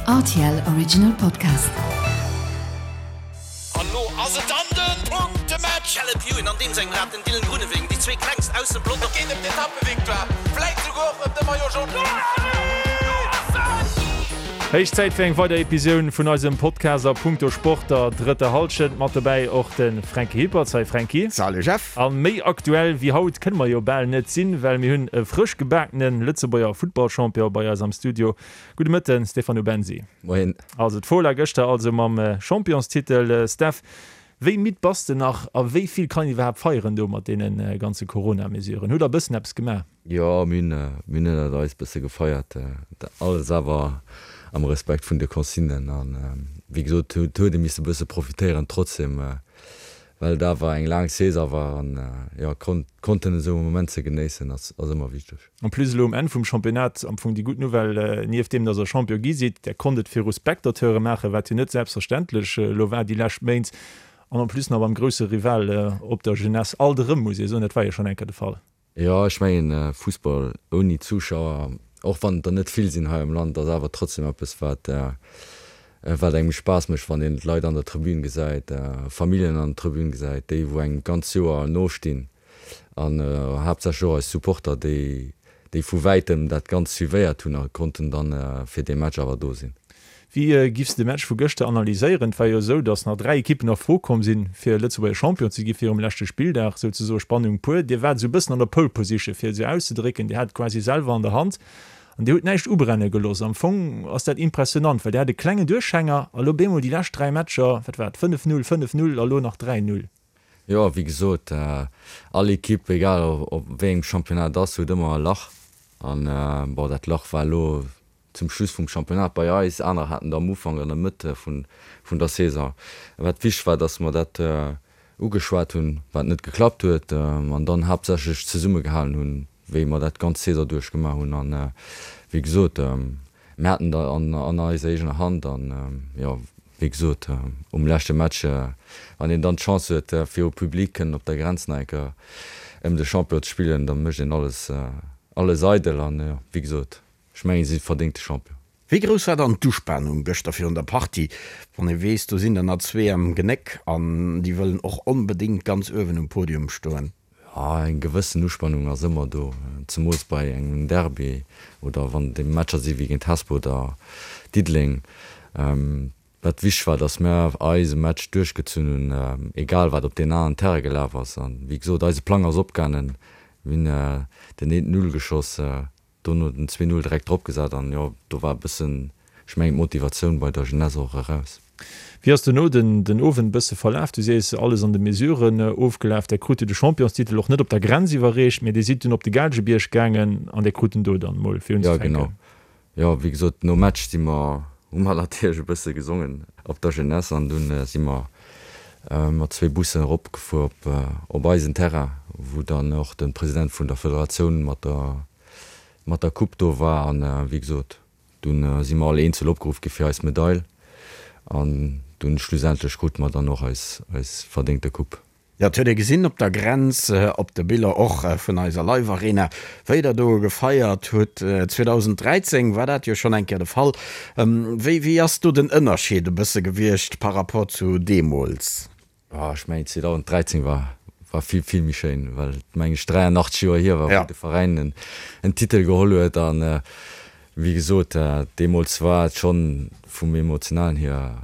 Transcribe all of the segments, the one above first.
Rtl Original Podcast. An lo ass et dann den Punktematch! Caleb Ewan an deem sengem Rad, den Dylan Groenewegen, déi zwee klengst aus dem Pelotong. Et geet ëm d'Etappevictoire, vläit souguer och ëm de Maillot Jaune. Héich Zäit fir eng weider Episioun vun eisem Podcast a punkto Sport der drëtter Hallschent. Mat dobäi och de Franky Hippert. Salut Franky. Salut Jeff. A méi aktuell wéi haut kënne mer jo bal net sinn, well mir hunn e frësch gebakene Lëtzebuerger Futtballchampion bei eis am Studio. Gudde Mëtten, Stefano Bensi. Moien. Also d'Fola gëschter also mam Championstitel. Steph, wéi midd bass de nach a wéi vill kann een iwwerhaapt feieren do mat deene ganze Corona-Mesuren? Hutt der e bëssen eppes gemaach? Jo, mir hunn ënnert eis bësse gefeiert. Alles awer am Respekt vun de Consignen. An wéi gesot, et huet ee misse bësse profitéieren trotzdem. Well et awer eng laang Saison war an jo konnten esou e Moment ze genéissen ass ëmmer wichteg. En plus elo um Enn vum Championnat am Fong déi gutt Nouvelle, nieft deem dass der Champion gi sidd, där konnt et viru Spectateure maachen, wat jo net selbstverständlech elo war déi lescht Méint, an en plus nach beim grousse Rival op der Jeunesse. Alt erëm muss ee soen, dat war jo schonn eng Kéier de Fall. Jo, ech mengen Fussball ouni Zuschauer, och wann et der net vill sinn hei am Land, ass awer trotzdem eppes wat wat engem Spaass mécht, wann een d'Leit an der Tribün gesäit, Familljen an der Tribün gesäit, déi wou engem d'ganz Joer nostinn an haaptsächlech och eis Supporter, déi déi vu wäitem dat Ganzt suivéiert hunn a konnten dann fir dee Match awer do sinn. Wéi giffs de Match vu gëschter analyséieren? Et war jo esou, datt nach 3 Ekippen a Fro komm sinn, fir Lëtzebuerger Champion ze gi virum leschte Spilldag, souzesoe Spannung pur. Dir waart esou e bëssen an der Pole Position, fir et esou auszedrécken. Dir hat et quasi selwer an der Hand an Dir hutt näischt ubrenne gelooss. Am Fong ass dat impressionant, well Dir hat e klengen Duerchhänger a lo bemol déi lescht 3 Matcher, wat war et, 5, 0, 5, 0 a lo nach 3, 0. Jo, wéi gesot, all Ekipp, egal op wéi engem Championnat et ass, huet ëmmer e Lach. An bon, dat Lach war elo zum Schluss vum Championnat bei eis, aner haten et am Ufank, an der Mëtt vun der Saison. Wat wichteg war, datt mer dat ugeschwat hunn, wat net geklappt huet, an dann haaptsächlech zesummegehalen hunn, wéi mer dat d'ganz Saison duerch gemaach hunn. An wéi gesot, mir haten et an eiser eegener Hand an, jo, wéi gesot, um leschte Match, wann een dann d'Chance huet, viru Public kënnen op der Grenz nach eng Kéier ëm de Champion ze spillen, da mécht een alles, alles eidel. An, jo, wéi gesot, Ech mengen, si sinn verdéngte Champion. Wéi grouss war dann d'Uspanung gëschter virun der Partie, wann ee weess, do sinn der nach zwee am Genéck an déi wëllen och onbedéngt ganz uewen um Podium stoen? Jo, eng gewëssen Uspanung ass ëmmer do, zemools bei engem Derby oder wann et Matcher si wéi géint Hesper oder Diddeleng. Wat wichteg war, dass mir eise Match duerchgezunn hunn, egal wat op deen aneren Terrain gelaf ass. An wéi gesot, eise Plang ass opgaangen, mir hunn den eent Null geschoss, Dono den 2, 0 direkt drop gesat an jo, do war e bëssen, ech mengen, d'Motivatioun bei der Jeunesse och eraus. Wéi ass dono den den Owend e bësse verlaf? Du sees, alles an de Mesuren ofgelaf. Där krut jo de Championstitel och net op der Grenz iwwerreecht, mee Dir sidd dunn op de Gaalgebierg gaangen an Dir krut en do dann mol fir Jo, unzefänken. genau. Jo, wéi gesot, nom Match si mer, hu mer natierlech e bësse gesongen op der Jeunesse an dunn si mer mat zwee Bussen eropgefuer op op eisen Terrain, wou dann och de President vun der Federatioun mat der mat der Coupe do war an wéi gesot, dunn si mer all eenzel opgeruff gi fir eis Medail an dunn schlussendlech krute mer dann och eis eis verdéngte Coupe. Jo, et huet ee gesinn op der Grenz, op de Biller och vun eiser Live Arena, wéi der do gefeiert hutt. 2013 war dat jo schonn eng Kéier de Fall. Wéi wéi ass do den Ënnerscheed e bësse gewiescht par rapport zu deemools? Oh, ech mengen 2013 war war vill vill méi schéin, well et meng ech 83 Joer hier war, wou de Veräin en en Titel geholl huet an wéi gesot, deemools war et schonn vum emotionalen hier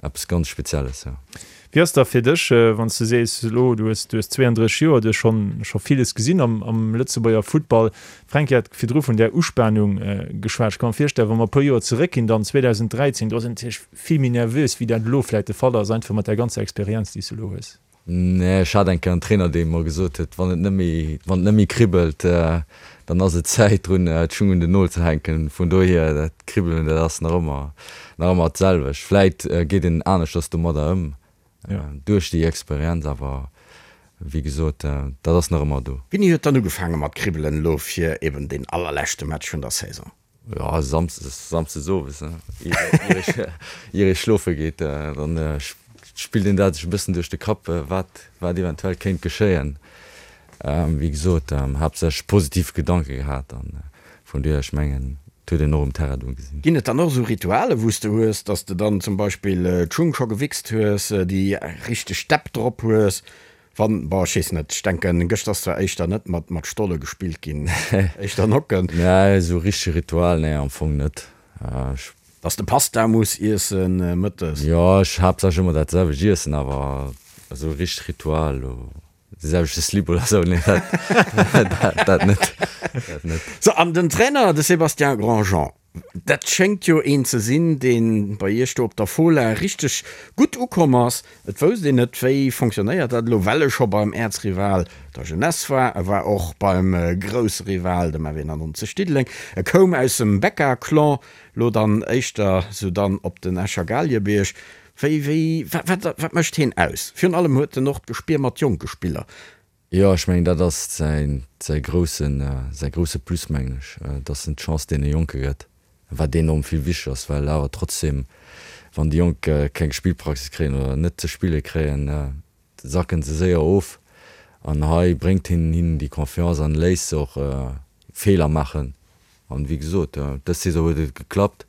Eppes ganz Spezielles, jo. Wéi ass da fir dech, wann s de sees elo, du hues, du hues 32 Joer, du hues schonn, scho villes gesinn am, am Lëtzebuerger Futtball. D'Fränki hat virdru vun där Uspanung geschwat. Ech ka mer virstellen, wa mer e puer Joer zeréckginn, dann 2013, do ass een natierlech vill méi nervös, wéi dat elo vläicht de Fall ass, einfach mat där ganzer Experienz, déi s de elo hues. Nee, ech hat eng Kéier en Trainer, dee mer gesot huet, wann et net méi, wann et net méi kribbelt, dann ass et Zäit drun, d'Schung un den Nol ze hänken. Vun dohier, dat Kribbelen, dat ass nach ëmmer, nach ëmmer d'selwecht. Vläit geet een aneschters domadder ëm, duerch déi Experienz, awer wéi gesot, dat ass nach ëmmer do. Wéini huet dann ugefaange mat kribbelen elo fir eben deen allerleschte Match vun der Saison? Jo, Samsdes, Samsdes owes, ier ee schlofe geet, dann spillt een dat sech e bëssen duerch de Kapp, wat, wat eventuell kéint geschéien. Wéi gesot, haaptsächlech positiv Gedanke gehat an vun dohier, ech mengen. huet een och um Terrain do gesinn. Ginn et dann och esou Rituale wou s de hues, dass de dann zum Beispill d'Schung scho gewichst hues, déi richteg Stepp drop hues, wann, bon ech weess net, ech denken gëschter ass zwar éischter net mat mat Stolle gespillt ginn, éischter Nocken. Nee, esou richteg Ritual, nee am Fong net. Ech. Dass de Pasta muss iessen mëttes. Jo, ech haaptsächlech ëmmer dat selwecht iessen, awer esou richteg Ritual elo. De selwechte Slip oder sou, nee dat, dat net, dat net. Sou, an den Trainer, de Sébastien Grandjean, dat schéngt jo een ze sinn, dee bei Iech do op der Fola richteg gutt ukomm ass. Et wousst een net, wéi fonctionnéiert dat elo, well e scho beim Äerzrival, der Jeunesse war. E war och beim grousse Rival, dem FW 91 Diddeleng. E koum aus dem Becca-Clan, lo dann éischter sou dann op den Escher Galiebierg. Wéi, wéi, wat, wat mécht heen aus? Virun allem huet en och d'Gespier mat jonke Spiller. Jo, ech mengen, dat ass säin, säi groussen, säi grousse Plus, mengen ech, dass en d'Chance deene Jonke gëtt, wat enorm vill wichteg ass, well awer trotzdem, wann déi Jonk keng Spillpraxis kréien oder net ze spille kréien, sacken se séier of. An hei bréngt hien hinnen déi Confiance an léisst se och Feeler maachen. An wéi gesot, dës Saison huet et geklappt.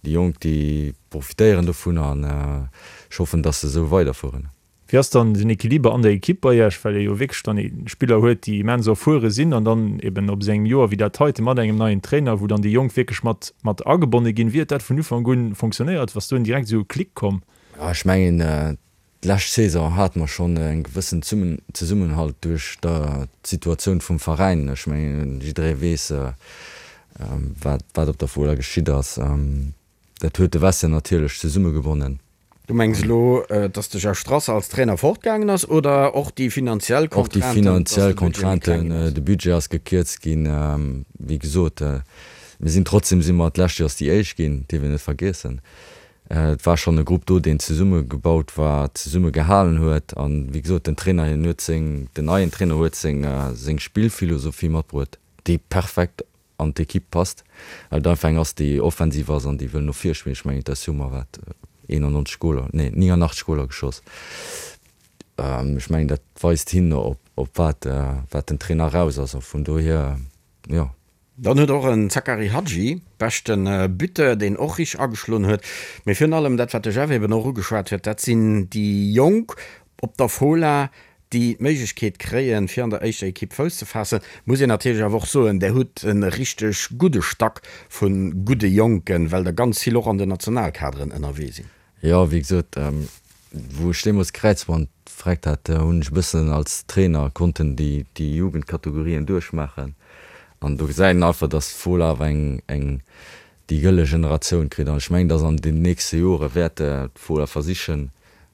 Déi Jonk, déi profitéieren dovun an ech hoffen, dass se esou weiderfueren. Wéi ass dann den Equiliber an der Ekipp bei Iech, well Dir jo wierklech dann Spiller huet, déi immens erfuere sinn an dann eben op esou engem Joer wéi dat heite mat engem neien Trainer, wou dann déi Jonk wierklech mat mat agebonne ginn. Wéi huet dat vun Ufank un fonctionnéiert? Ass do direkt esou e Klick komm? Ech mengen, D'lescht Saison hate mer schonn e gewëssen Zesummenhalt duerch d'Situatioun vum Veräin. Ech mengen, jidderee weess, wat op der Fola geschitt ass. Dat huet de Vestiaire natierlech zesummegebonnen. Du mengs elo, dass de Jeff Strasser als Trainer fortgaangen ass oder och déi finanziell Contrainten? Och déi finanziell Contrainten, de Budget ass gekierzt ginn. Wéi gesot, mir sinn trotzdem si mer d'lescht Joers déi Éischt ginn, dierf een net vergiessen. Et war schonn e Grupp do, deen zesumme gebaut war, zesumme gehalen huet. An, wéi gesot, den Trainer, hien huet seng, den neien Trainer huet seng, seng Spillphilosophie matbruet, déi perfekt an d'Ekipp passt, well et einfach eng ass, déi offensiv ass an déi wëll no vir spillen. Ech mengen, d'SU mer wat 91 Goler, nee, 89 Goler geschoss. Ech mengen, dat weist hin op, op wat, wat den Trainer eraus ass. A vun dohier, jo. Dann huet och en Zakari Hadji, beschte Buteur, deen och richteg ageschloen huet. Mee virun allem dat, wat de Jeff eben och ugeschwat huet, dat sinn déi Jonk op der Fola, déi d'Méiglechkeet kréien, fir an der éischter Ekipp Fouss ze faassen. Muss een natierlech awer och soen, där hutt e richteg gudde Stack vu gudde Jonken, well der ganz vill och an den Nationalkaderen ënnerwee sinn. Jo, wéi gesot, wou ech deemools d'Kräizband vreckt hat, hunn ech e bëssen als Trainer konnten déi déi Jugendkategorien duerchmaachen an do gesäit een einfach, dass d'Fola awer eng eng déi gëlle Generatioun kritt an ech mengen, dass an den nächste Jore wäert d'Fola versichen,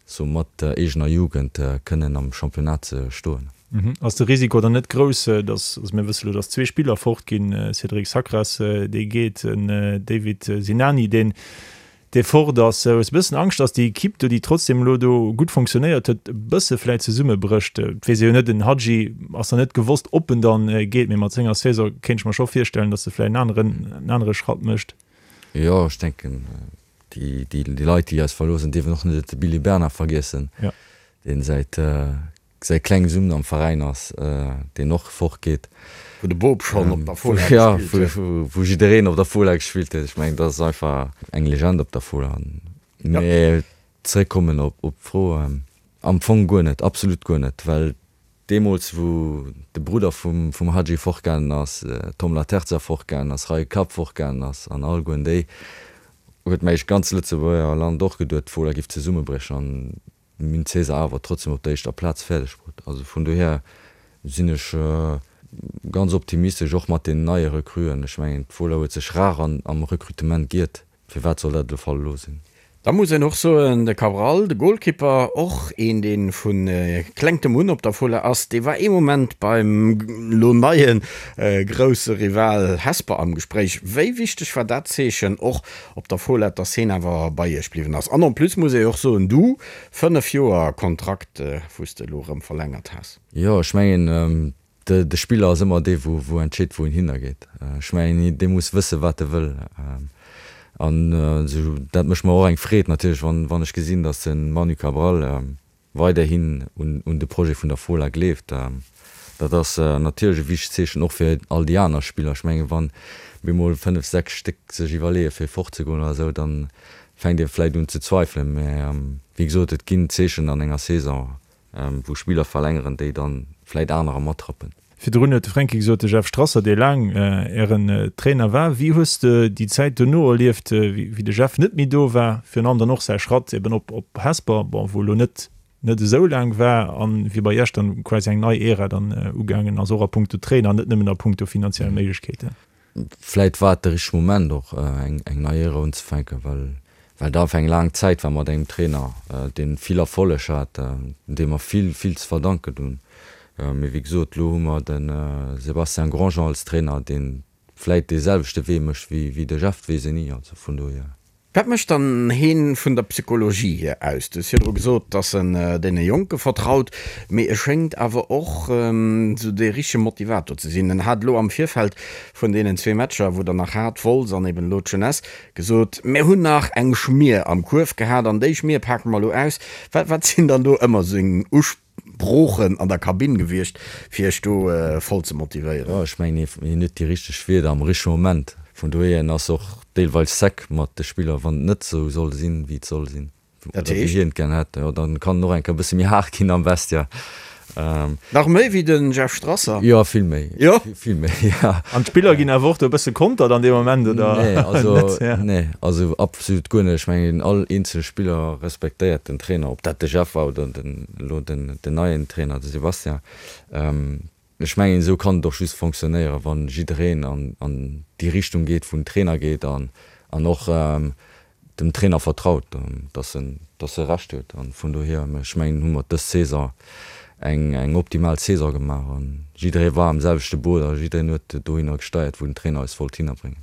sou mat der eegener Jugend kënnen am Championnat ze stoen. Ass de Risiko dann net grouss, dass, also mir wësse lo, dass zwee Spiller fort ginn, Cédric Sacras, dee geet, en David Sinani, deen dee fort ass. Hues e bëssen Angscht, dass déi Equipe do, déi trotzdem elo do gutt fonctionnéiert huet, e bësse vläit zesummebrécht? Et weess ee jo net, den Hadji ass nach net gewosst, ob en dann geet, mee mat senger Saison kéint ech mer scho virstellen, dass e vläit en aneren, en anere Schratt mécht. Jo, ech denken, déi, déi Leit, déi eis verloossen, dierfen och net de Billy Bernard vergiessen, deen säit säi klengen Summen am Veräin ass, deen och fort geet. Wou de Bob schonn op der Fola gespillt huet. Jo, wou jiddereen op der Fola gespillt huet. Ech mengen, dat ass einfach eng Legend op der Fola. Mee zeréckkommen op d'Fro, am Fong guer net, absolut guer net, well deemools wou de Brudder vum Hadji fortgaangen ass, Tom Laterza fortgaangen ass, Raï Kapp fortgaangen ass an allegueren déi, huet mech d'ganz Lëtzebuerger Land och geduet, d'Fola giff zesummebriechen. Mir hunn d'Saison awer trotzdem op der éischter Plaz fäerdeg bruet. Also vun dohier sinn ech ganz optimistesch, och mat den neie Recruen. Ech mengen, d'Fola huet sech rar am Recrutement giert. Firwat soll dat de Fall elo sinn? Da muss een och soen, de Cabral, de Golkipper, och een dee vu klengtem un op der Fola ass, dee war ee Moment beim elo neie grousse Rival Hesper am Gespréich. Wéi wichteg war dat Zeechen och op der Fola, dass heen awer bei iech bliwwen ass. An en plus muss ee jo och soen, du, 5 Joer Kontrakt, wou s de elo erëm verlängert has. Jo, ech mengen, de Spiller ass ëmmer dee wou entscheet, wou en hinner geet. Ech mengen, dee muss wëssen, wat e wëll. An dat mécht mer och eng Freed natierlech, wann ech gesinn, dass de Manu Cabral weiderhin un de Projet vun der Fola gleeft. Dat ass natierlech e wichtegt Zeechen och fir all déi aner Spiller. Ech mengen, wann bemol 5, 6 Stéck sech iwwerleeë fir fortzegoen oder esou, da fänkt ee vläicht un ze zweifelen. Mä wéi gesot, et ginn Zeechen an enger Saison, wou Spiller verlängeren, déi dann vläit anerer matrappen. Virdrun huet de Fränki gesot, de Jeff Strasser, dee laang Ären Trainer war. Wéi hues de déi Zäit dono erlieft, wéi de Jeff net méi do war, virun allem dann och säi Schratt eben op Hesper, bon, wou elo net net esou laang war, an wéi bei Iech dann quasi eng nei Ära dann ugaangen ass, och a punkto Trainer, net nëmmen a punkto finanziell Méiglechkeeten? Vläit war et de richtege Moment och eng nei Ära unzefänken, well well et einfach eng laang Zäit war mat engem Trainer, dee vill Erfolleg hat, deem mer vill, vill ze verdanken hunn. Mee wéi gesot, elo hu mer de Sébastien Grandjean als Trainer, dee vläit dee selwechte Wee mécht wéi de Jeff, weess een ni. Also vun dohier. Wat mécht dann heen vun der Psychologie hier aus? Du hues virdru gesot, dass en deene Jonke vertraut, mee e schéngt awer och esou dee richtege Motivator ze sinn. En hat elo am Virfeld vun deenen zwee Matcher, wou der nach hat, Wolz an eben elo d'Jeunesse, gesot, Mir hunn nach eng Schmier am Kuerf gehat an déi Schmier pake mer elo aus. Wat wat sinn dann do ëmmer seng Broochen an der Kabinn gewiescht, fir iech do voll ze motivéieren? Jo, ech mengen, hien huet déi richteg Wierder am richtege Moment. Vun dohier, en ass och deelweis sec mat de Spiller, wann et net esou soll sinn, wéi et soll sinn, Dat oder wéi heescht? hien et gär hätt. Jo, dann kann en och eng Kéier e bësse méi haart ginn am Vestiaire. Nach méi wéi de Jeff Strasser? Jo, vill méi. Jo? Vill méi, jo. An d'Spiller ginn awer och do e bësse kontert an deem Moment, oder Nee, also, net? Ja. Nee, also absolut guer net. Ech mengen, all eenzele Spiller respektéiert den Trainer, ob dat de Jeff war oder den, elo den, den neien Trainer, de Sébastien. Ech mengen, esou kann et och just fonctionnéieren, wa jiddereen an, an déi Richtung geet, wou den Trainer geet an, an och dem Trainer vertraut, dass en, dass e Recht huet. An vun dohier, ech mengen, hu mer dës Saison eng, eng optimal Saison gemaach an jidderee war am selwechte Boot a jiddereen huet dohinner gesteiert, wou den Trainer eis wollt hinnerbréngen.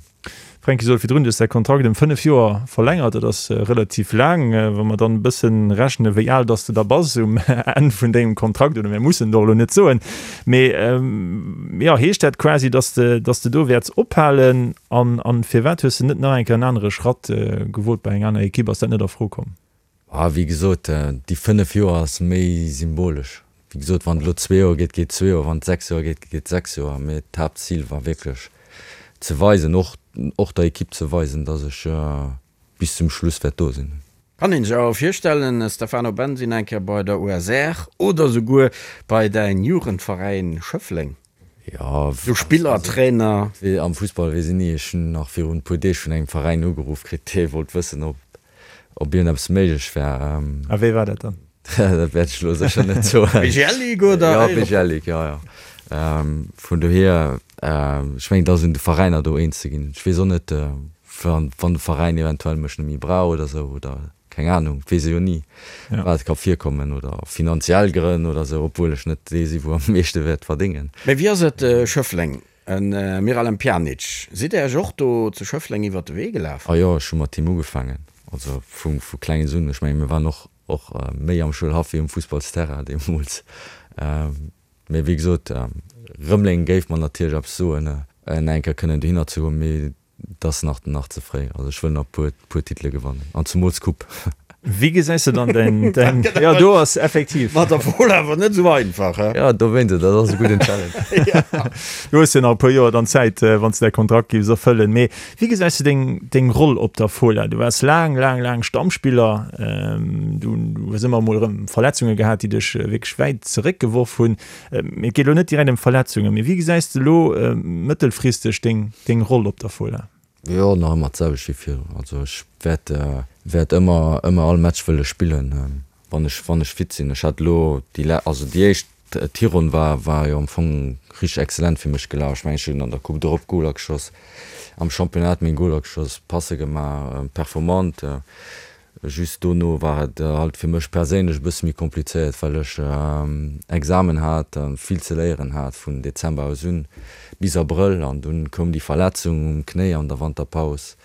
Fränki, sot virdrun, du hues däi Kontrakt ëm 5 Joer verlängert. Dat ass relativ laang. Wa mer dann e bëssen rechnen, wéi al dass de da bass um Enn vun dengem Kontrakt, oder mir mussen et och elo net soen, mee jo, heescht dat quasi, dass de, dass de do wäerts ophalen? An, an firwat hues de net nach eng Kéier en anere Schratt gewot bei eng aner Ekipp? Ass dat net a Fro komm? Ah, wéi gesot, déi 5 Joer ass méi symbolesch. Wéi gesot, wann et elo zwee Joer geet, geet zwee Joer, wann et 6 Joer geet, geet 6 Joer. Mee d'Haaptzil war wierklech ze weisen, och, och der Ekipp ze weisen, dass ech bis zum Schluss wäert do sinn. Kann een sech awer virstellen, Stefano Bensi eng Kéier bei der USR oder souguer bei däin Jugendveräin Schëffleng? Jo, Sou Spiller, Trainer. Am Fussball weess een ni. Ech hunn nach virun e puer Deeg vun engem Veräin ugeruff kritt, dee wollt wëssen, ob ob iergendeppes méiglech wär. A wéi war dat dann? Dat wäert ech elo sécher net soen. BGL Ligue oder? Jo, BGL Ligue, jo, jo. Vun dohier, ech mengen, et ass un de Veräiner do eens ze ginn. Ech weess och net, wann de Veräin eventuell mech net méi brauch oder esou oder keng Anung, et weess ee jo ni, wat ka virkommen oder finanziell Grënn oder esou, obwuel ech net dee si wou am meeschte wäert verdéngen. Mee wéi ass et Schëffleng, e Miralem Pjanic, sidd Där Iech och do zu Schëffleng iwwert de Wee gelaf? A jo, ech hu mat him ugefaangen, also vu vu klenges un. Ech menge mir waren och och méi am Schoulhaff wéi um Fussballsterrain deemools. Mee wéi gesot, Rëmeleng géif mer natierlech eppes soen, en eng Kéier kënnen dohinner ze goen, mee Et ass nach nach ze fréi. Also ech wëll nach puer puer Titele gewannen an zemools d'Coupe. Wéi gesäis de dann däin däin jo do ass effektiv. Mat der Fola awer net esou einfach, he? Jo dowéinst, dat ass e gudden Challenge. Du hues jo nach e puer Joer dann Zäit, wann s de däi Kontrakt giffs erfëllen. Mee wéi gesäis de deng deng Roll op der Fola? Du waars laang laang laang Stammspiller, du hues ëmmer emol erëm Verletzunge gehat, déi dech wierklech wäit zeréckgeworf hunn. Et geet elo net direkt ëm Verletzungen, mee wéi gesäis de elo mëttelfristeg deng deng Roll op der Fola? Jo, nach ëmmer d'selwecht wéi virdrun. Also ech wäert wäert ëmmer ëmmer all Match wëlle spillen, wann ech wann ech fit sinn. Ech hat elo déi le also déi éischt d'Hironn war war jo am Fong richteg excellent fir mech gelaf. Ech mengen ech hunn an der Coupe d'Europe Goler geschoss, am Championnat meng Goler geschoss, Passe gemaach, performant. Just dono war et halt fir mech perséinlech e bësse méi komplizéiert, well ech Examen hat a vill ze léieren hat vun Dezember aus un bis Abrëll. An dunn koum déi Verletzung um Knéi an der Wanterpaus,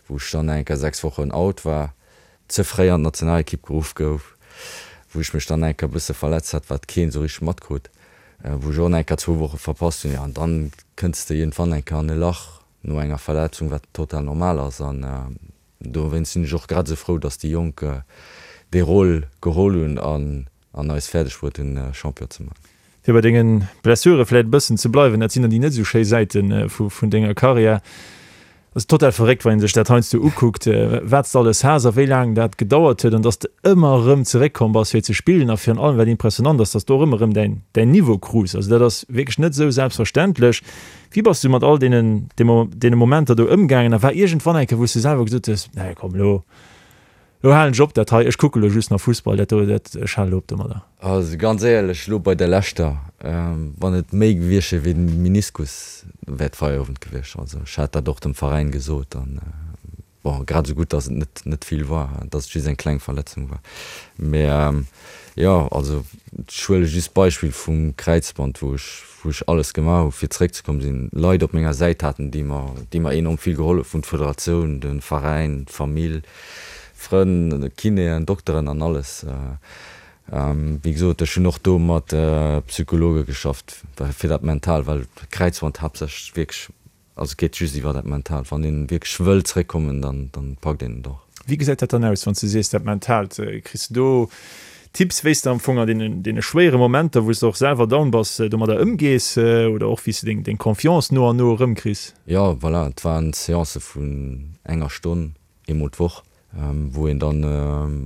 wou ech dann eng Kéier 6 Wochen out war, ze fréi an d'Nationalekipp geruff gouf, wou ech mech dann eng Kéier e bësse verletzt hat, wat keen esou richteg matkrutt, wou ech och nach eng Kéier zwou Woche verpasst hunn. Jo, an dann kënns de iergendwann eng Kéier an e Lach no enger Verletzung, wat total normal ass. An Dowéinst sinn ech och grad esou frou, dass déi Jonk dee Rôle geholl hunn an eis fäerdeg bruet hunn, Champion ze man. Fir bei denge Blessure vläit e bëssen ze bleiwen, dat sinn dann déi net esou schéi Säite vun denger Karriär. Ass total verréckt, wann ee sech dat heiansdo ukuckt, wat s de alles has a wéi laang dat gedauert huet an dass de ëmmer erëm zeréckkomm bass fir ze spillen a virun allem wat impressionant ass, dass de och ëmmer erëm däin däin Niveau krus. Also dat ass wierklech net esou selbstverständlech. Wéi bass du mat all deenen deene Momenter do ëmgaangen a war iergendwann eng Kéier wou s de selwer gesot hues, nee komm elo Lo halen ech op dat hei, ech kucke lo just nach Fussball, dat do, dat, ech hale lo op domadder. Also ganz éierlech, lo bei der leschter, wann et méi gewiescht wier wéi den Meniskus, wär et Feierowend gewiescht. Also ech hat dat och dem Veräin gesot an bon, grad esou gutt, dass et net net vill war, dass et just eng kleng Verletzung war. Mä jo, also ech huele just d'Beispill vum Kräizband, wou ech wou ech alles gemaach hu fir zeréckzekommen, sinn Leit op menger Säit haten, déi mer déi mer enorm vill gehollef hunn, d'Federatioun, de Veräin, d'Famill, Frënn, Kinéen, Dokteren an alles. Wéi gesot, ech hunn och do mat Psychologe geschafft fir dat mental, well Kräizband haaptsächlech wierklech Also et geet just iwwer dat Mentaalt. Wann een wierklech wëll zréckkommen, dann dann packt een et och. Wéi gesäit dat dann aus, wann s du sees dat Mentaalt? Kriss du do Tipps, wéi s de am Fong an deenen deene schwéiere Momenter, wou s de och selwer down bass, domadder ëmgees oder och wéi s de deng deng Confiance no an no erëmkriss? Jo, voilà, et waren Seancë vun enger Stonn, eemol d'Woch, wou een dann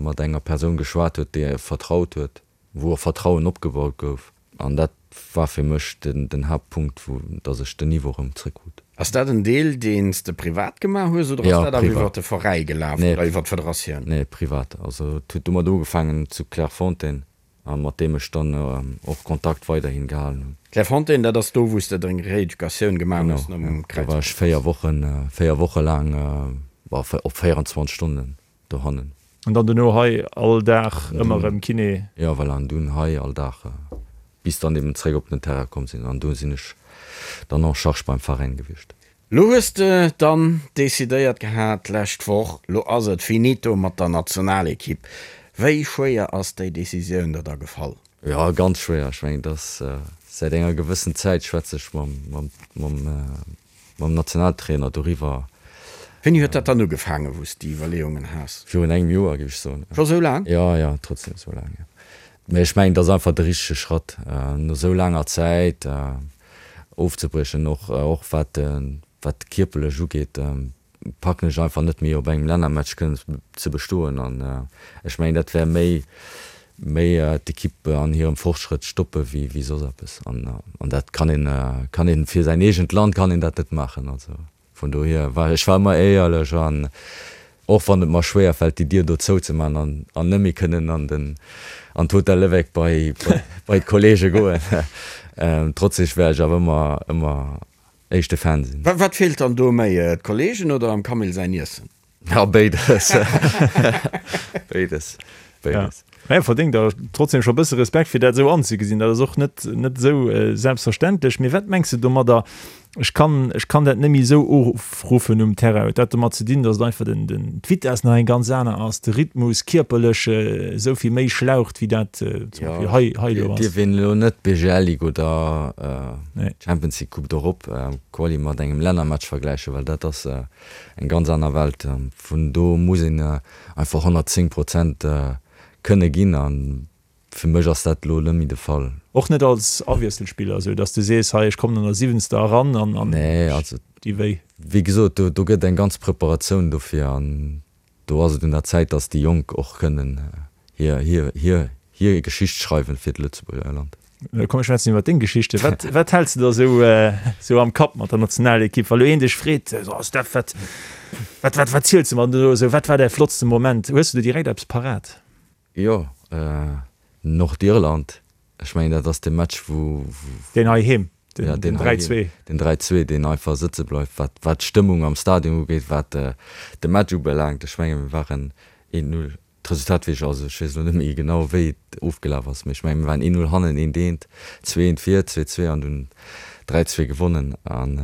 mat enger Persoun geschwat huet, déi ee vertraut huet. wou och Vertrauen opgebaut gouf an dat war fir mech den Haaptpunkt, wou dass ech den Niveau erëm zréckkrut. Ass dat en Deel, deen s de privat gemaach hues oder ass dat awer iwwer de Veräi gelaf oder iwwer d'Federatioun? Nee, privat. Also et huet domat ugefaangen zu Clairefontaine a mat deem ech dann och Kontakt weiderhin gehalen hunn. Clairefontaine, dat ass do, wou s de deng Reeducatioun gemaach hues nom Kräizbandriss? Genau, do war ech 4 Wochen, 4 Woche laang op 24 Stonnen dohannen. An dann dono hei all Dag ëmmer erëm Kiné? Jo, voilà, an dunn hei all Dag, bis dann eben zréck op den Terrain komm sinn. An do sinn ech dann en charge beim Veräin gewiescht. Lo hues de dann decidéiert gehat d'lescht Woch, lo ass et finito mat der Nationalekipp. Wéi schwéier ass déi Decisioun der da gefall? Jo, ganz schwéier. Ech mengen, et ass säit enger gewëssen Zäit schwätze ech mam, mam, mam Mam Nationaltrainer doriwwer. Wéini huet dat dann ugefaangen, wou s déi Iwwerleeungen has? Virun engem Joer, géif ech soen. Scho sou laang? Jo, jo, trotzdem sou laang, jo. Mee ech mengen, et ass einfach de richtege Schratt, no sou laanger Zäit ofzebriechen. Och, och wat, wat kierperlech ugeet, packen ech einfach net méi op engem Lännermatch kënnen ze bestoen. An ech mengen, dat wär méi, méi d'Ekipp an hirem Fortschrëtt stoppe wéi wéi soss eppes. An an dat kann een kann een fir säin eegent Land kann een dat net maachen. Also vun dohier war ech war ëmmer éierlech an och wann et mer schwéier fält déi Dier do zouzemaachen an an net méi kënnen an den an d'Hotel Lévêque bei bei d'Kollege goen, trotzdem wäert ech awer ëmmer ëmmer éischte Fan sinn. Wat feelt dann do méi, d'Kollegen oder am Camille säin Iessen? Ja, béides. Béides. Béides. Mä verdéngt der trotzdem scho bësse Respekt, fir dat esou anzegesinn. Dat ass och net, net esou selbstverständlech. Mee wat mengs de domadder, ech kann, ech kann dat net méi esou ofruffen um Terrain? Huet dat domat ze dinn, datt et einfach den, den, d'Vitess nach eng ganz aner ass, de Rhythmus kierperlech esou vill méi schlaucht, wéi dat zum Beispill hei, hei elo ass? Dierf een elo net d'BGL Ligue oder d'Champions League Coupe d'Europe Quali mat engem Lännermatch vergläichen, well dat ass eng ganz aner Welt. Vun do muss een einfach 110 Prozent kënne ginn a fir mech ass dat elo net méi de Fall. Och net als Awiesselspiller, esou datt s de sees, hei ech kommen an der siwwenzter eran an an Nee, also déi wéi. Wéi gesot, do do gëtt eng ganz Preparatioun dofir an do ass et un der Zäit, datt déi Jonk och kënnen hir hir hir hir Geschicht schreiwen fir d'Lëtzebuerger Land. Komm mir schwätzen iwwer deng Geschichte. Wat, wat häls de da sou, sou am Kapp mat der Nationalekipp, wa lo een dech freet, so Steph, wat, wat, wat, wat ziels de mer do esou, wat war däi flottste Moment? Hues de do direkt eppes parat? Jo, Nordirland, ech mengen dat ass de Match wou, wou. Deen heiheem, den, den 3, 2. Den 3, 2, deen einfach sëtze bleift, wat, wat d'Stëmmung am Stadion ugeet, wat de Match ubelaangt. Ech menge mir waren 1, 0 D'Resultat weess ech, also ech weess elo net méi genau wéi et ofgelaf ass, mee ech mengen mir waren 1, 0 hannen, 1 eent, 2, 1 vir, 2, 2 an dunn 3, 2 gewonnen. An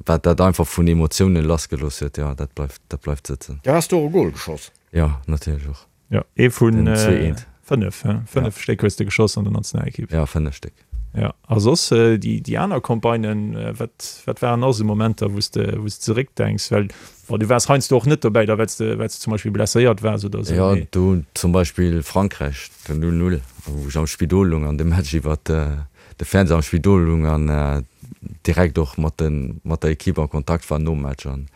wat dat einfach vun Emotiounen lassgelooss huet, jo dat bleift, dat bleift sëtzen. Du has do och e Gol geschoss? Jo, natierlech och. Jo, ee vun 5, 5 Stéck hues de geschoss an der Nationalekipp. Jo, 5 Stéck. Jo, a soss déi aner Campagnen, wat wat waren nach esou Momenter, wou s de wou s de zeréckdenks? Well bon, du waars heiansdo och net dobäi da well s de well s de zum Beispill blesséiert waars oder esou, Jo, do zum Beispill Frankräich, den 0, 0, wou ech am Spidol lung an de Match iwwer. de Fernseher am Spidol lung an direkt och mat de mat der Equipe a Kontakt war nom Match. An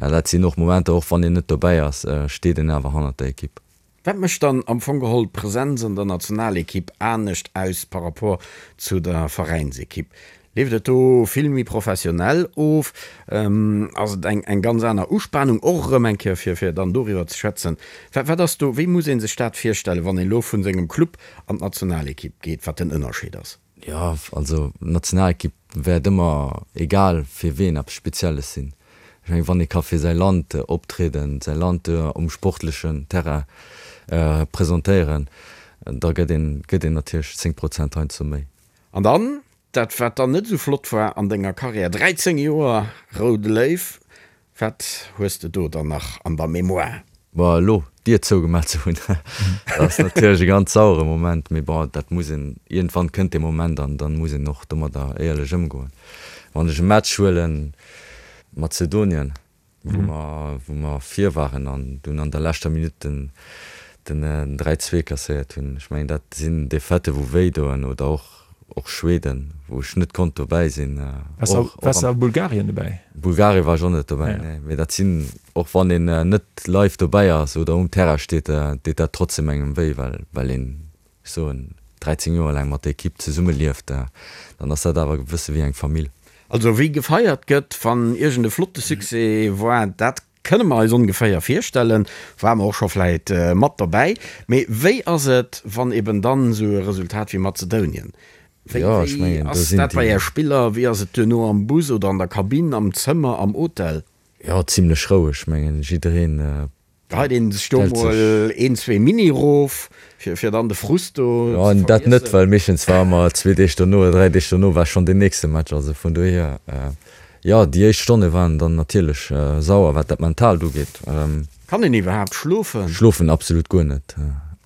jo, dat sinn och Momenter, och wann een net dobäi ass, steet een awer hannert der Equipe. Wat mécht dann am Fong geholl d'Presenz an der Nationalekipp anescht aus par rapport zu der Veräinsekipp? Leeft et do vill méi professionell of? Ass et eng eng ganz aner Uspanung och erëm eng Kéier fir fir dann doriwwer ze schwätzen? Wat wat ass do, wéi muss ee sech dat virstellen, wann een elo vu sengem Club an d'Nationalekipp geet, wat den Ënnerscheed ass? Jo, also d'Nationalekipp wäert ëmmer, egal fir ween, eppes Spezielles sinn. Ech mengen, wann ee ka fir säi Land optrieden, säi Land um sportlechen Terrain presentéieren, da gëtt een gëtt een natierlech 10 Prozent heiansdo méi. An dann Dat wat dann net esou flott war an denger Karriär, 13 Joer Roude Léiw, wat hues de do dann nach an der Mémoire? Bon, elo d'Dier zougemaach ze hunn, dat ass natierlech e ganz sauere Moment, mee bon, dat muss een, iergendwann kënnt dee Moment an dann muss een och domadder éierlech ëmgoen. Wann ech e Match huelen, Mazedonien, wou mer wou mer vir waren an dunn an der leschter Minutt den den 3, 2 kasséiert hunn. Ech mengen dat sinn Defaitë wou wéi doen oder och och Schweden wou ech net konnt dobäi sinn. Och Waars de a Bulgarien dobäi? Bulgarien war ech och net dobäi, nee. Mee dat sinn, och wann een net live dobäi ass oder um Terrain steet, deet dat trotzdem engem wéi, well well een ech soen, 13 Joer laang mat der Ekipp zesumme lieft, dann ass dat awer e bësse wéi eng Famill. Also wéi gefeiert gëtt, wann iergend e flotte Succès war, dat kënne mer eis ongeféier virstellen, ware mer och scho vläit mat dobäi. Mee wéi ass et, wann eben dann esou e Resultat wéi Mazedounien, wéi wéi ass dat bei Är Spiller, wéi ass et duerno am Bus oder an der Kabinn, am Zëmmer, am Hotel? Jo, zimlech roueg, mengen jiddereen Geheit een sech do mol een, zwee Mini rof, fir dann de Frust do ze vergiessen? Dat net, well meeschtens war ëmmer zwee Deeg dono oder dräi Deeg dono war schonn deen nächste Match. Also vun dohier, jo, déi éischt Stonne waren dann natierlech sauer, wat dat Mentaalt ugeet. Kann een iwwerhaapt schlofen? Schlofen absolut guer net.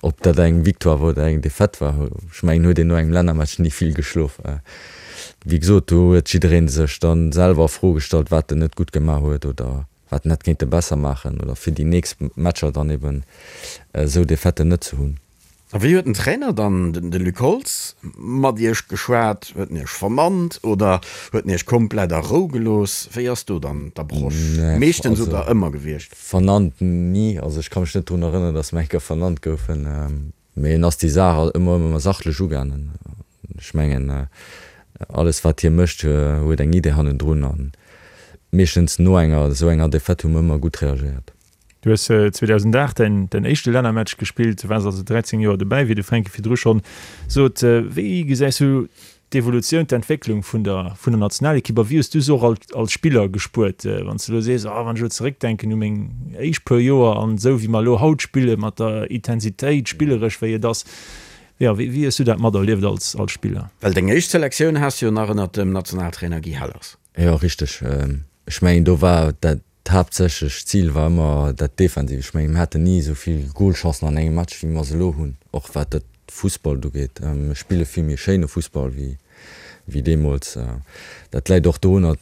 Ob dat eng Victoire war oder eng Defaite war, ech mengen, huet een no engem Lännermatch ni vill geschlof. Wéi gesot, do huet jidderee sech dann selwer a Fro gestallt, wat en net gutt gemaach huet oder wat en hätt kéinte besser maachen oder fir déi nächst Matcher dann eben esou Defaiten net ze hunn. A wéi huet den Trainer dann, de Luc Holtz, mat Iech geschwat? Huet en Iech vernannt oder huet en Iech komplett a Rou gelooss? Wéi ass do dann d'Approche meeschtens oder ëmmer gewiescht? Vernannt ni, also ech ka mech net drun erënneren, datt mer eng Kéier vernannt goufen. Mee en ass déi Saach ëmmer ëmmer sachlech ugaangen. Ech mengen, alles wat hie mécht, huet eng Idee hannendrun. A meeschtens no enger esou enger Defaite hu mer ëmmer gutt reagéiert. Du hues 2008 däin däin éischte Lännermatch gespillt, du waars also 13 Joer dobäi, wéi de Fränki virdru schonn sot. Wéi gesäis du d'Evolutioun, d'Entwécklung vun der vun der Nationalekipp a wéi hues du se och als als Spiller gespuert? Wann s de elo sees, oh wann ech elo zeréckdenken u meng éischt puer Joer an esou wéi mer elo haut spille mat der Intensitéit spilleresch wéi et ass, jo wéi wéi hues du dat materlieft als als Spiller? Well deng éischt Selektioun has du jo nach ënnert dem Nationaltrainer Guy Hellers. Jo richteg, ech mengen do war dat D'haaptsächlech Zil war ëmmer dat Defensiv. Ech mengen, mir haten ni esou vill Golchancen an engem Match, wéi mer se elo hunn, och wat dat Fussballt ugeet. Mir spille vill méi schéine Fussball wéi wéi deemools. Dat läit och dorunner,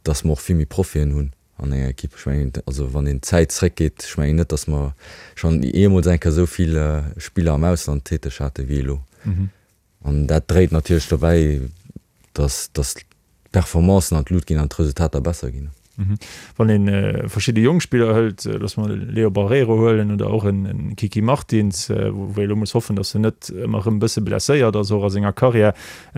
datt mer och vill méi Profien hunn an enger Ekipp. Ech mengen, also wann een d'Zäit zréckgeet, ech mengen net, datt mer schonn jeemools eng Kéier esou vill Spiller am Ausland täteg hate wéi elo. An dat dréit natierlech dobäi, dass d'Performancen an d'Lut ginn an d'Resultater besser ginn. Wann ee verschidde jonk Spiller hëlt, loosse mer de Leo Barreiro huelen oder och en Kiki Martins, wou ee elo muss hoffen, datt en net ëmmer erëm e bësse blesséiert ass, och a senger Karriär.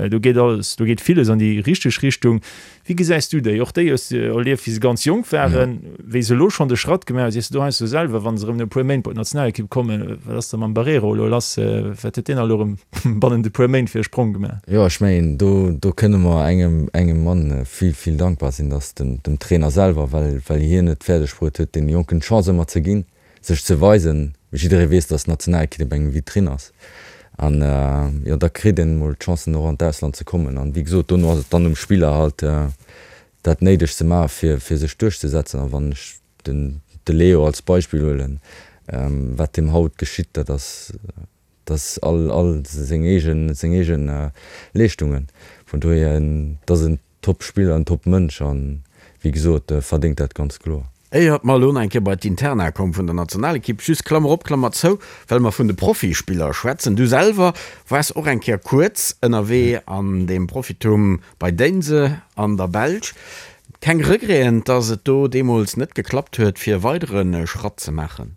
Do geet alles, do geet villes an déi richteg Richtung. Wéi gesäis du déi? Och déi hues de erlieft, wéi se ganz jonk waren, wéi se elo schonn de Schratt gemaach hunn. Sees de do heiansdo selwer, wa se erëm no e puer Méint bei d'Nationalekipp kommen, wat ass da mam Barreiro elo lass, wat huet deen elo erëm bannent e puer Méint fir e Sprong gemaach? Jo, ech mengen, do, do kënne mer engem, engem Mann vill, vill dankbar sinn, dat ass dem, dem Trainer selwer, well, well hien et fäerdeg bruet huet, deene Jonken d'Chance ëmmer ze ginn, sech ze weisen. Jidderee weess, dass d'Nationalekipp op eng Vitrinn ass. An jo, da kritt een emol d'Chancen och an d'Ausland ze kommen. An wéi gesot, dono ass et dann um Spiller halt dat Néidegt ze maachen, fir, fir sech duerchzesetzen. A wann ech den, de Leo als Beispill huelen, wat deem haut geschitt, dat ass, dat ass all, all seng eegen, seng eegen Leeschtungen. Vun dohier, dat ass en Top-Spiller, en Top-Mënsch an, wéi gesot, verdéngt dat ganz kloer. Éiert mer elo nach eng Kéier bei d'Interna komm vun der Nationalekipp, just Klammer op, Klammer zou, well mer vun de Profispiller schwätzen, Du selwer waars och eng Kéier kuerz ënnerwee an deem Profitum bei Deinze an der Belsch. Keng Regreten, dass et do deemools net geklappt huet, fir e weidere Schratt ze maachen?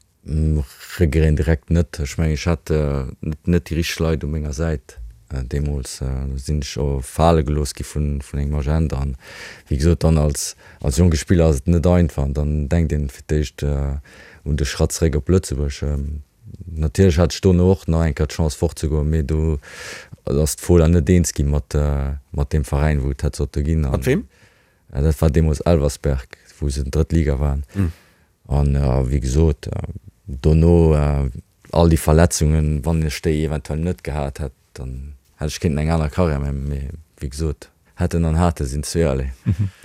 Regreten direkt net. Ech mengen, ech hat net déi richteg Leit u menger Säit deemools. Do sinn ech och fale gelooss gi vun engem Agent. An wéi gesot, dann als als jonke Spiller ass et net einfach. An dann denkt een fir d'éischt un de Schratt zeréck op Lëtzebuerg. Natierlech hat ech dono och nach eng Kéier d'Chance fortzegoen, mee do ass d'Fola net eens gi mat mat deem Veräin, wou et hätt sollte ginn. Mat weem? Dat war deemools Elversberg, wou se drëtt Liga waren. An wéi gesot, dono all déi Verletzungen, wann ech déi eventuell net gehat hätt, dann hätt ech kéinten eng aner Karriär maachen. Mee wéi gesot, hätten an hate sinn zweeërlee.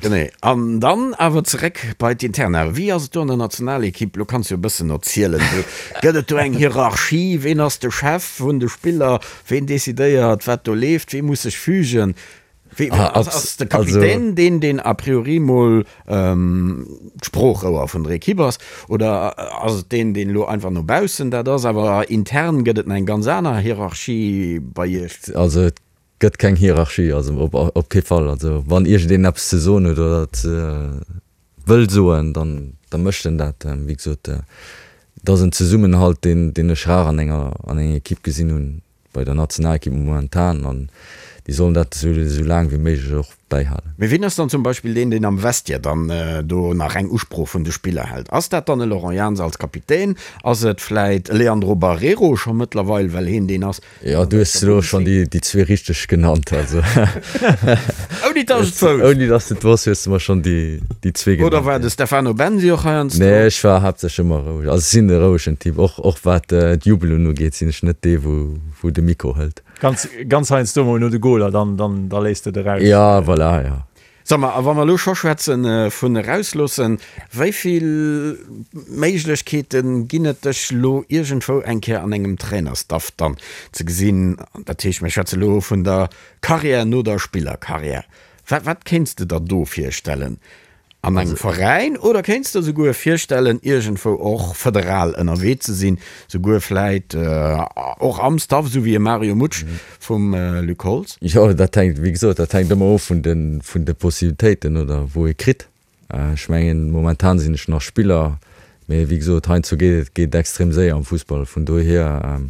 Genee. An dann awer zeréck bei d'Interna. Wéi ass et do an der Nationalekipp? Lo kanns du jo e bëssen erzielen. Gëtt et do eng Hierarchie? Ween ass de Chef vun de Spiller? Ween decidéiert, wat do leeft? Wee muss sech fügen? Wéi, ass, ass de Kapitän deen, deen a priori mol d'Sproochrouer vun der Ekipp ass, oder ass et deen, deen elo einfach no baussen dat ass, awer intern gëtt et nach eng ganz aner Hierarchie bei Iech? Also et gëtt keng Hierarchie, also op, op kee Fall. Also wann iergendeen eppes ze soen huet oder ze wëll soen, dann, da mécht en dat. Wéi gesot, et ass en Zesummenhalt, deen, deen ech rar an enger, an enger Ekipp gesinn hunn. bei der Nationalekipp momentan an déi sollen dat esou esou laang wéi méiglech och bäihalen. Mee wien ass dann zum Beispill deen, deen am Vestiaire dann do nach eng Usprooch vun de Spiller hält? Ass dat dann e Laurent Jans als Kapitän? Ass et vläit e Leandro Barreiro scho mëttlerweil, well heen deen ass? Jo, du hues elo schonn déi déi zwee richteg genannt, also. Ouni datt ech et wousst. Ouni datt s de et wosst, hues de mer schonn déi déi zwee genannt. Oder war de Stefano Bensi och heiansdo? Nee, ech war haaptsächlech ëmmer roueg. Also ech sinn e rouegen Typ. Och och wat d'Jubelen ugeet, sinn ech net dee wou wou de Mikro hëlt. Ganz ganz heiansdo mol no de Goler, dann dann da léisst de et eraus. Ja, voilà, ja. Sag mal, a wa mer elo scho schwätze vun erausloossen, wéi vill Méiglechkeete ginn et dech elo iergendwou eng Kéier an engem Trainerstaff dann ze gesinn? Dat heescht, mir schwätze elo vun der Karriär no der Spillerkarriär. Wat wat kéints de der do virstellen? An engem Veräin oder kéints de der souguer virstellen, iergendwou och federal ënnerwee ze sinn, souguer vläit och am Staff, esou wéi e Mario Mutsch vum Luc Holtz? Jo, dat hänkt, wéi gesot, dat hänkt ëmmer of vun de, vun de Possibilitéiten oder wou ee kritt. Ech mengen, momentan sinn ech nach Spiller, mee wéi gesot, heiansdo geet et geet extrem séier am Fussball. Vun dohier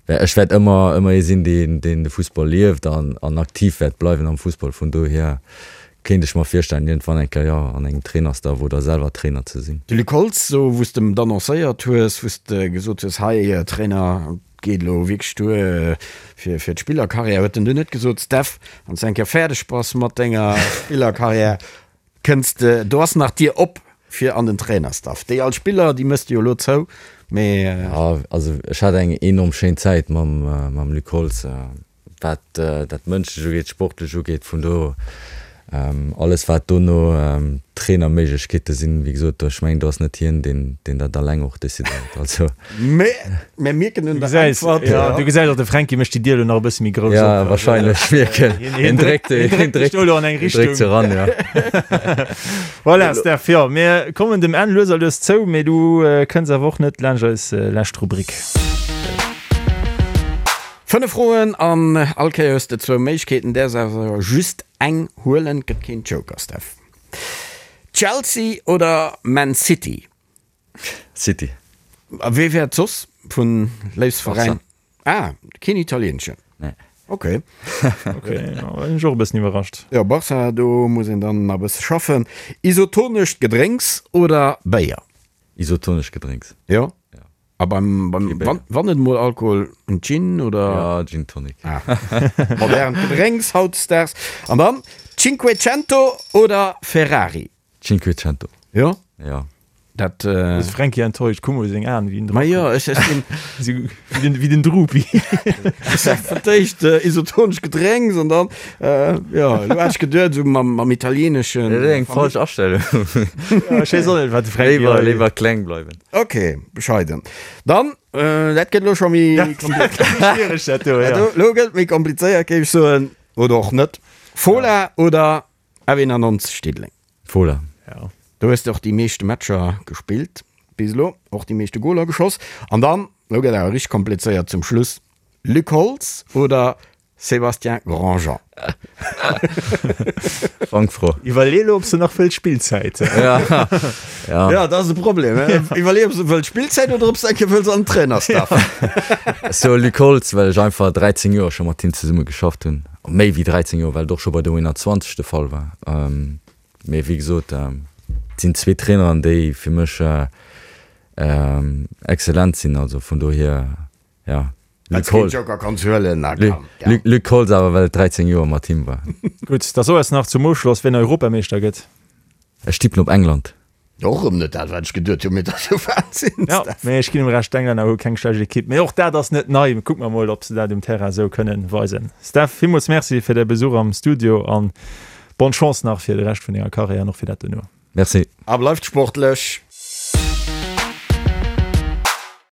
Ech wäert ëmmer, ëmmer ee sinn, deen, deen de Fussball lieft an, an aktiv wäert bleiwen am Fussball. Vun dohier kéint ech mer virstellen, iergendwann eng Kéier, jo, an engem Trainerstaff oder selwer Trainer ze sinn. De Luc Holtz, sou wou s de em et annoncéiert hues, wou s de gesot hues, hei Trainer, et geet elo wierklech duer fir, fir d'Spillerkarriär, huet en dunn net gesot, Steph, wann s de eng Kéier fäerdeg bass mat denger Spillerkarriär, Kënns de, do ass nach d'Dier op fir an den Trainerstaff. Déi al Spiller, déi mëss de jo elo zou, mee. Jo, also ech hat eng enorm schéin Zäit mam mam Luc Holtz, wat dat Mënschlech ugeet, sportlech ugeet. Vun do alles wat dono Trainerméiglechkeete sinn, wéi gesot, ech mengen do ass net hien, deen deen dat alleng och decidéiert. Also. Mee mir mierken un der Äntwert. Jo, du gesäis och, de Fränki mécht déi Dier elo nach e bësse méi grouss op. Ja, wahrscheinlech, mierken. Hien dréckt, hien dréckt elo an eng Richtung. Dréckt se eran, ja. Voilà, Steph, jo, mir kommen dem Enn lues a lues zou, mee du kënns awer och net laanscht eis lescht Rubrik. Fënnef Froen an all Kéier hues de zwou Méiglechkeeten, däerfs awer just eng huelen, gëtt keen Joker, Steph. Chelsea oder Man City? City. A wee wär et soss vun Léifsveräin? Ah, keen italieeneschen? Nee. Ok. Ok, jo, sinn ech och e bëssen iwwerrascht. Jo, Barca, do muss een dann nach e bësse schaffen. Isotonescht Gedrénks oder Béier? Isotonescht Gedrénks. Jo? Ja. A beim, beim, Kee Béier. wann, wann et mol Alkohol, en Gin oder? Ja, Gin Tonic. Ah, modernt Gedrénks hautdesdaags. An dann Cinquecento oder Ferrari? Cinquecento. Jo? Ja. Dat. Ass Fränki enttäuscht? Kuck mol seng Aen, wéi en Ma jo, ech, ech sinn. Sou wéi den, wéi den Drupi. Ech sag fir d'éischt isotonesch Gedrénks an dann, jo, elo hat ech geduet, esou mam, mam italieeneschen. Dat ass eng falsch Astellung. Ja, ech weess och net, wat de Fränki Léiwer, hei. léiwer kleng bleiwen. Ok, bescheiden. Dann, dat gëtt elo scho méi komplizéiert. Schwiereg dat do, ja. Elo gëtt et méi komplizéiert, géif ech soen. Oder och net. Fola oder F91 Diddeleng. Fola. Ja. Do hues de och déi meeschte Matcher gespillt bis elo, och déi meeschte Goler geschoss. An dann, elo gëtt awer richteg komplizéiert zum Schluss, Luc Holtz oder Sébastien Grandjean? Fangfro. Iwwerlee elo, ob s de nach wëlls Spillzäit. Ja, ja. Ja, dat ass de Problem. Iwwerlee, ob s de wëlls Spillzäit oder ob s de eng Kéier wëlls an den Trainerstaff. Ech soe Luc Holtz, well ech einfach 13 Joer scho mat him zesumme geschafft hunn. Méi wéi 13 Joer, well et och scho bei der U21 de Fall war. Mee wéi gesot, et sinn zwee Traineren, déi fir mech excellent sinn. Also vun dohier, jo, Luc Holtz. Joker kanns huelen, na komm. Luc Holtz awer, well et 13 Joer mat him war. Gutt, da so eis nach zum Ofschloss, wien Europameeschter gëtt. Ech tippen op England. Och erëm net dat wat ech geduet hunn, mee dat ass jo Wahnsinn. Jo, mee ech ginn em Recht, d'Englänner hu keng schlecht Ekipp, mee och dat ass net nei. Kucke mer mol, ob se dat um Terrain esou kënnen weisen. Steph, villmools Merci fir däi Besuch am Studio an bonne Chance nach fir de Rescht vun denger Karriär an och fir dat dono. Merci. A bleift sportlech!